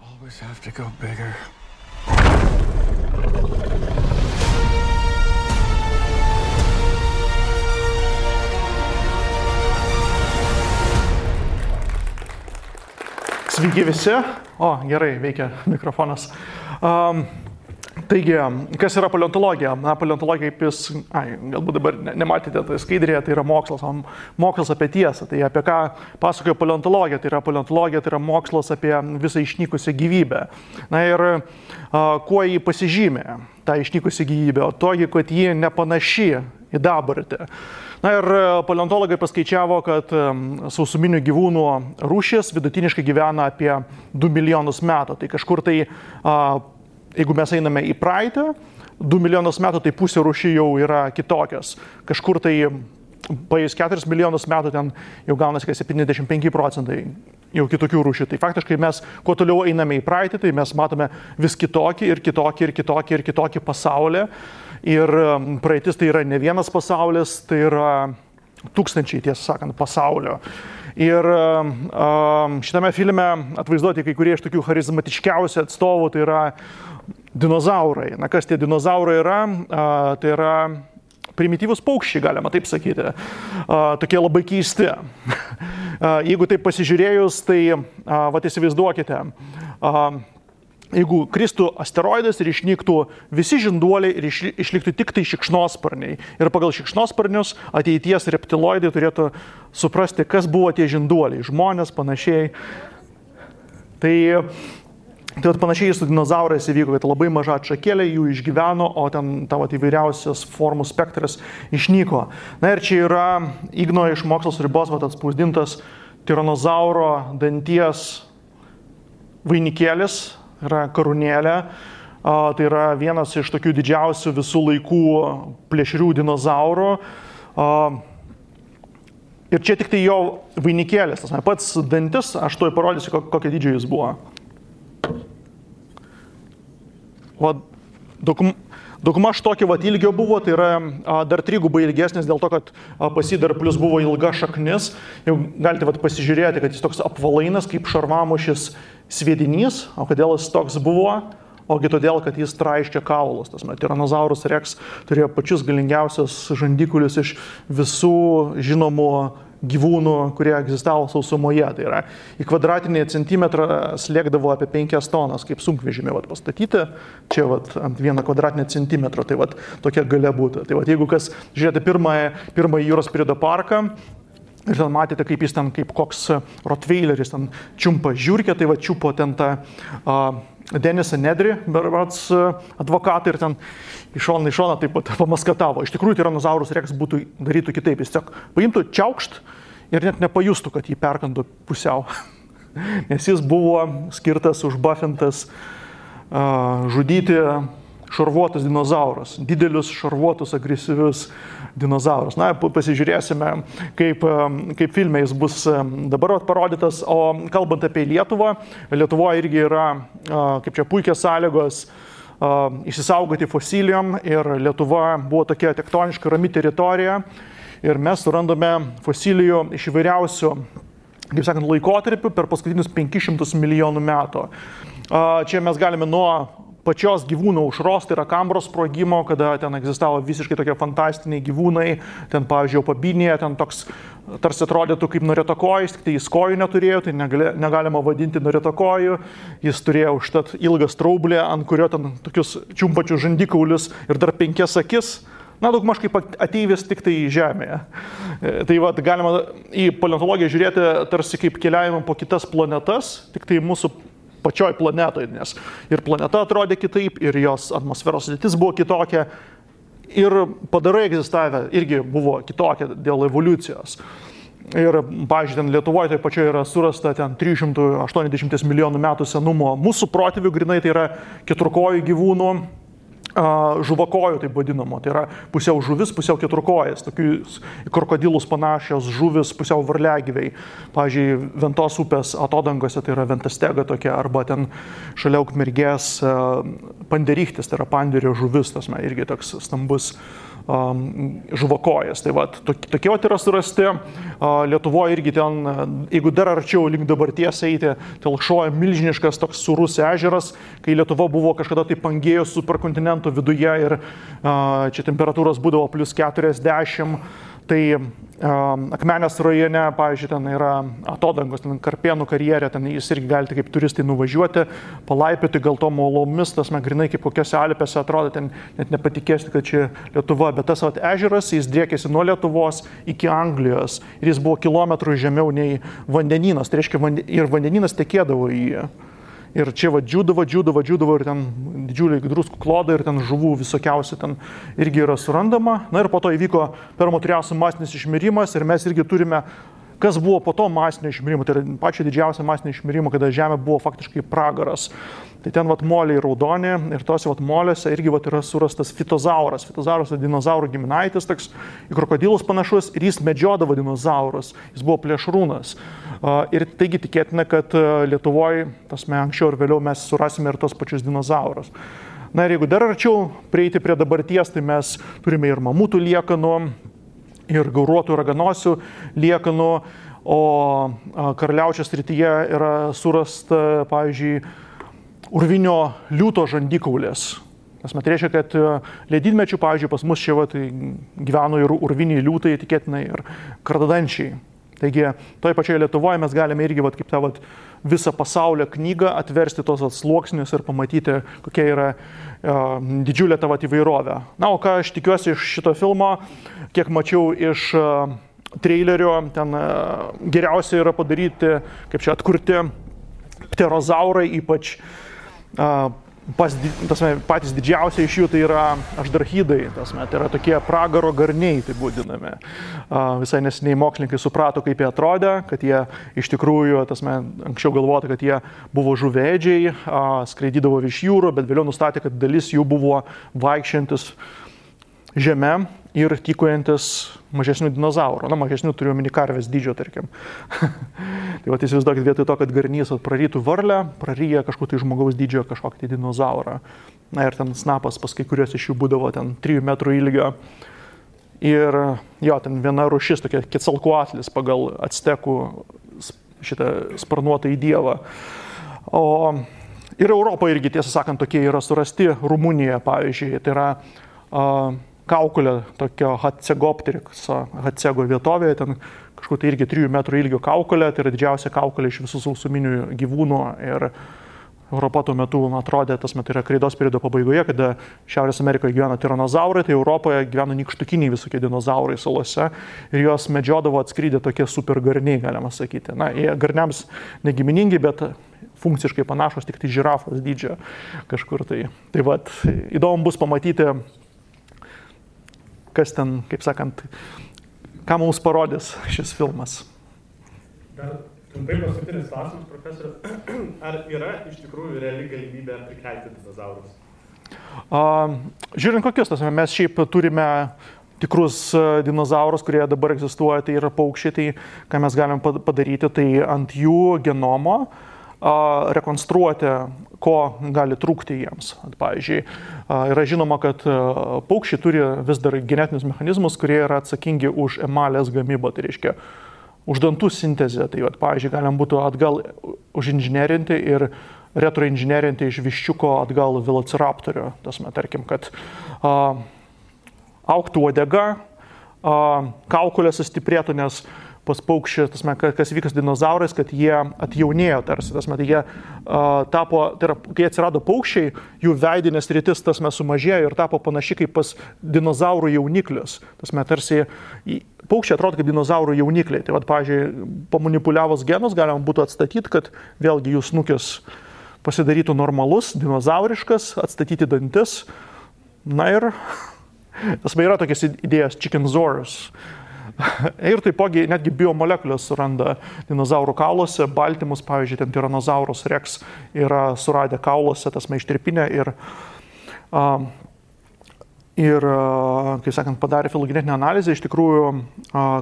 always have to go bigger. Sveiki visi. O, gerai, veikia mikrofonas. Taigi, kas yra paleontologija? Na, paleontologija, kaip jūs, galbūt dabar nematėte, tai skaidrėje, tai yra mokslas apie tiesą. Tai apie ką pasakoja paleontologija? Tai yra mokslas apie visą išnykusią gyvybę. Na ir kuo jį pasižymė, tą išnykusią gyvybę? O togi, kad ji nepanaši į dabartį. Na ir paleontologai paskaičiavo, kad sausuminių gyvūnų rūšis vidutiniškai gyvena apie 2 milijonus metų. Tai kažkur tai, jeigu mes einame į praeitį, 2 milijonus metų, tai pusė rūšių jau yra kitokios. Kažkur tai paėjus 4 milijonus metų ten jau gaunasi 75% jau kitokių rūšių. Tai faktiškai mes, kuo toliau einame į praeitį, tai mes matome vis kitokį pasaulį. Ir praeitis tai yra ne vienas pasaulis, tai yra tūkstančiai, tiesą sakant, pasaulio. Ir šitame filme atvaizduoti kai kurie iš tokių charizmatiškiausių atstovų, tai yra dinozaurai. Na, kas tie dinozaurai yra? Tai yra primityvūs paukščiai, galima taip sakyti. Tokie labai keisti. Jeigu taip pasižiūrėjus, tai įsivaizduokite, jeigu kristų asteroidas ir išnyktų visi žinduoliai ir išliktų tik tai šikšnosparniai. Ir pagal šikšnosparnius ateities reptiloidai turėtų suprasti, kas buvo tie žinduoliai, žmonės, panašiai. Tai panašiai su dinozaurais įvyko, kad labai maža atšakėlė jų išgyveno, o ten tavo įvairiausias formų spektras išnyko. Na ir čia yra Igno iš Mokslas ribos atspausdintas tiranozauro danties vainikėlis, yra karūnėlė, tai yra vienas iš tokių didžiausių visų laikų plėšrių dinozaurų. Ir čia tik tai jo vainikėlis, tas pats dantis, aš tuoj parodysiu, kokio dydžio jis buvo. Daugmaž tokio ilgio buvo, tai yra dar trigubai ilgesnis dėl to, kad pas jį dar plus buvo ilga šaknis. Jau galite pasižiūrėti, kad jis toks apvalainas kaip šarvamušis sviedinys. O kodėl jis toks buvo? Ogi todėl, kad jis traiškė kaulus. Tyrannosaurus rex turėjo pačius galingiausius žandikaulius iš visų žinomų gyvūnų, kurie egzistavo sausumoje. Tai yra, į kvadratinį centimetrą slėgdavo apie 5 tonas, kaip sunkvežimį pastatyti. Čia ant 1 kvadratinio centimetro, tai tokia galia būtų. Tai jeigu kas žiūrėti pirmąjį jūros periodo parką, ir ten matėte, kaip jis ten, kaip koks rotveileris ten čiumpa žiūrkę, tai čiupo ten tą Denisą Nedrį, berods advokatą, ir ten iš šono taip pat pamaskatavo. Iš tikrųjų, Tyrannosaurus rex darytų kitaip. Jis tiesiog paimtų čiaukšt ir net nepajustų, kad jį perkantų pusiau. Nes jis buvo skirtas, užbufintas žudyti šarvuotus dinozaurus, didelius šarvuotus, agresyvius dinozaurus. Na, pasižiūrėsime, kaip filme jis bus dabar parodytas. O kalbant apie Lietuvą, Lietuvoje irgi yra, kaip čia, puikios sąlygos išsisaugoti fosilijom, ir Lietuva buvo tokia tektoniška rami teritorija, ir mes surandame fosilijų iš įvairiausių, kaip sakant, laikotarpių per paskutinius 500 milijonų metų. Čia mes galime nuo pačios gyvūnų aušros, tai yra Kambros sprogimo, kada ten egzistavo visiškai tokie fantastiniai gyvūnai, ten, pavyzdžiui, Pabinėje, ten toks tarsi atrodytų kaip norėtakojus, tik tai jis kojų neturėjo, tai negalima vadinti norėtakoju, jis turėjo užtat ilgą straublę, ant kurio ten tokius čiumpačius žandikaulius ir dar 5 akis. Na, daugmaž kaip ateivis tik tai žemėje. Tai galima į paleontologiją žiūrėti tarsi kaip keliavimą po kitas planetas, tik tai mūsų pačioj planetoje, nes ir planeta atrodė kitaip, ir jos atmosferos sudėtis buvo kitokia, ir padarai egzistavę irgi buvo kitokia dėl evoliucijos. Ir, pavyzdžiui, ten Lietuvoje tai pačioje yra surasta ten 380 milijonų metų senumo mūsų protėvių, grinai tai yra keturkojų gyvūnų, žuvakojų taip vadinamo, tai yra pusiau žuvis, pusiau keturkojas, tokius krokodilus panašios žuvis, pusiau varliagyviai. Pavyzdžiui, Ventos upės atodangose tai yra ventastega tokia, arba ten šalia Ukmergės panderichtis, tai yra panderio žuvis, tas irgi toks stambus žuvakojas. Tai vat, tokie vat yra surasti. Lietuvoje irgi ten, jeigu dar arčiau link dabarties eiti, telkšoja milžiniškas toks surus ežeras, kai Lietuva buvo kažkada tai Pangėjos superkontinento viduje ir čia temperatūros būdavo plus 40. Tai Akmenės rajone, pavyzdžiui, ten yra atodangos, ten Karpėnų karjerė, ten jūs irgi galite kaip turistai nuvažiuoti, palaipioti gal tom uolomis, tas grinai kaip kokiose Alpėse atrodo, ten net nepatikėsite, kad čia Lietuva, bet tas ežeras, jis driekėsi nuo Lietuvos iki Anglijos ir jis buvo kilometrų žemiau nei vandenynas, tai reiškia ir vandenynas tekėdavo į jį. Ir čia džiūdavo ir ten didžiuliai druskų klodai ir ten žuvų visokiausių ten irgi yra surandama. Na ir po to įvyko Permo Triaso masinis išmirimas ir mes irgi turime, kas buvo po to masinio išmirimo, tai yra pačio didžiausio masinio išmirimo, kada Žemė buvo faktiškai pragaras. Tai ten moliai raudoni ir tose moliuose irgi yra surastas fitozauras. Fitozauras yra dinozaurų giminaitis, toks į krokodilus panašus ir jis medžiodavo dinozaurus, jis buvo plėšrūnas. Ir taigi tikėtina, kad Lietuvoje, anksčiau ir vėliau mes surasime ir tos pačius dinozaurus. Na ir jeigu dar arčiau prieiti prie dabarties, tai mes turime ir mamutų liekanų, ir gauruotų raganosių liekanų, o Karaliaučiaus srityje yra surasta, pavyzdžiui, urvinio liūto žandikaulės. Tai reiškia, kad ledynmečių, pavyzdžiui, pas mus čia gyveno ir urviniai liūtai, tikėtinai ir kardadančiai. Taigi, toje pačioje Lietuvoje mes galime irgi kaip tą visą pasaulio knygą atversti tos sluoksnius ir pamatyti, kokia yra didžiulė ta įvairovė. Na, o ką aš tikiuosi iš šito filmo, kiek mačiau iš trailerio, ten geriausia yra padaryti, kaip čia atkurti pterozaurai, ypač patys didžiausiai iš jų tai yra ašdarchidai, tai yra tokie pragaro garniai, taip vadinami. Visai nesiniai mokslininkai suprato, kaip jie atrodė, kad jie iš tikrųjų, anksčiau galvota, kad jie buvo žuvėdžiai, skraidydavo virš jūrų, bet vėliau nustatė, kad dalis jų buvo vaikščiantis žeme ir tykojantis mažesnių dinozaurų. Na, mažesnių turiu omeny karvės dydžio, tarkim. Tai įsivaizduokit, vietoj to, kad garnys prarytų varlę, praryja kažkokį tai žmogaus dydžio kažkokį tai dinozaurą. Na ir ten snapas pas kai kurios iš jų būdavo ten 3 metrų ilgio. Ir jo, ten viena rūšis, tokia Quetzalcoatlis pagal actekų šitą sparnuotą į dievą. Ir Europoje irgi, tiesą sakant, tokie yra surasti. Rumunijoje, pavyzdžiui, tai yra kaukolė, tokio Hatsego vietovėje, ten kažkur tai irgi 3 metrų ilgio kaukolė, tai yra didžiausia kaukolė iš visų sausuminių gyvūnų ir Europa tuo metu atrodė, tai yra kreidos periodo pabaigoje, kada Šiaurės Amerikoje gyveno tiranozaurai, tai Europoje gyveno nykštukiniai visokie dinozaurai salose ir juos medžiodavo atskridę tokie supergarniai, galima sakyti. Na, jie garniams negiminingi, bet funkciškai panašus, tik tai žirafos dydžio kažkur tai. Tai įdomu bus pamatyti, kas ten, kaip sakant, ką mums parodys šis filmas. Dar trumpai paskutinis klausimas, profesorius. Ar yra iš tikrųjų reali galimybė prikelti dinozaurus? Žiūrint kokius, mes šiaip turime tikrus dinozaurus, kurie dabar egzistuoja, tai yra paukščiai, tai ką mes galim padaryti, tai ant jų genomo rekonstruoti, ko gali trūkti jiems. Pavyzdžiui, yra žinoma, kad paukščiai turi vis dar genetinius mechanizmus, kurie yra atsakingi už emalės gamybą, tai reiškia už dantų sintezę. Tai, pavyzdžiui, galim būtų atgal užinžinerinti ir retroinžinerinti iš viščiuko atgal velociraptorio. Tarkim, kad augtų uodega, kaukolė sustiprėtų, nes pas paukščius, kas vykas dinozaurais, kad jie atjaunėjo tarsi. Jie tapo, tai yra, kai atsirado paukščiai, jų veidinės rytis sumažėjo ir tapo panaši kaip pas dinozaurų jauniklius. Tarsi paukščiai atrodo kaip dinozaurų jaunikliai. Tai, pavyzdžiui, pamanipuliavus genus galima būtų atstatyti, kad vėlgi jų snukis pasidarytų normalus, dinozauriškas, atstatyti dantis. Na ir yra tokias idėjas Chickensaurus. Ir taipogi netgi biomolekulės suranda dinozaurų kauluose, baltymus, pavyzdžiui, ten Tyrannosaurus rex yra suradę kauluose, ištirpinę ir kaip sakant, padarė filogenetinę analizę, iš tikrųjų,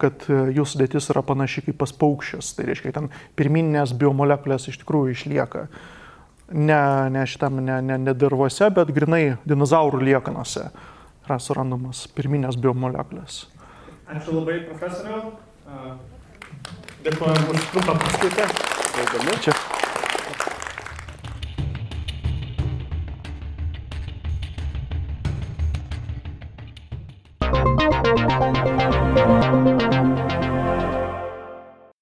kad jų sudėtis yra panaši kaip pas paukščius. Tai reiškia, ten pirminės biomolekulės iš tikrųjų išlieka. Ne dirvose, bet grinai dinozaurų liekanose. yra surandamos pirminės biomolekulės. Ačiū labai, profesoriau. Dėkuojam už trumpą paskaitą. Čia.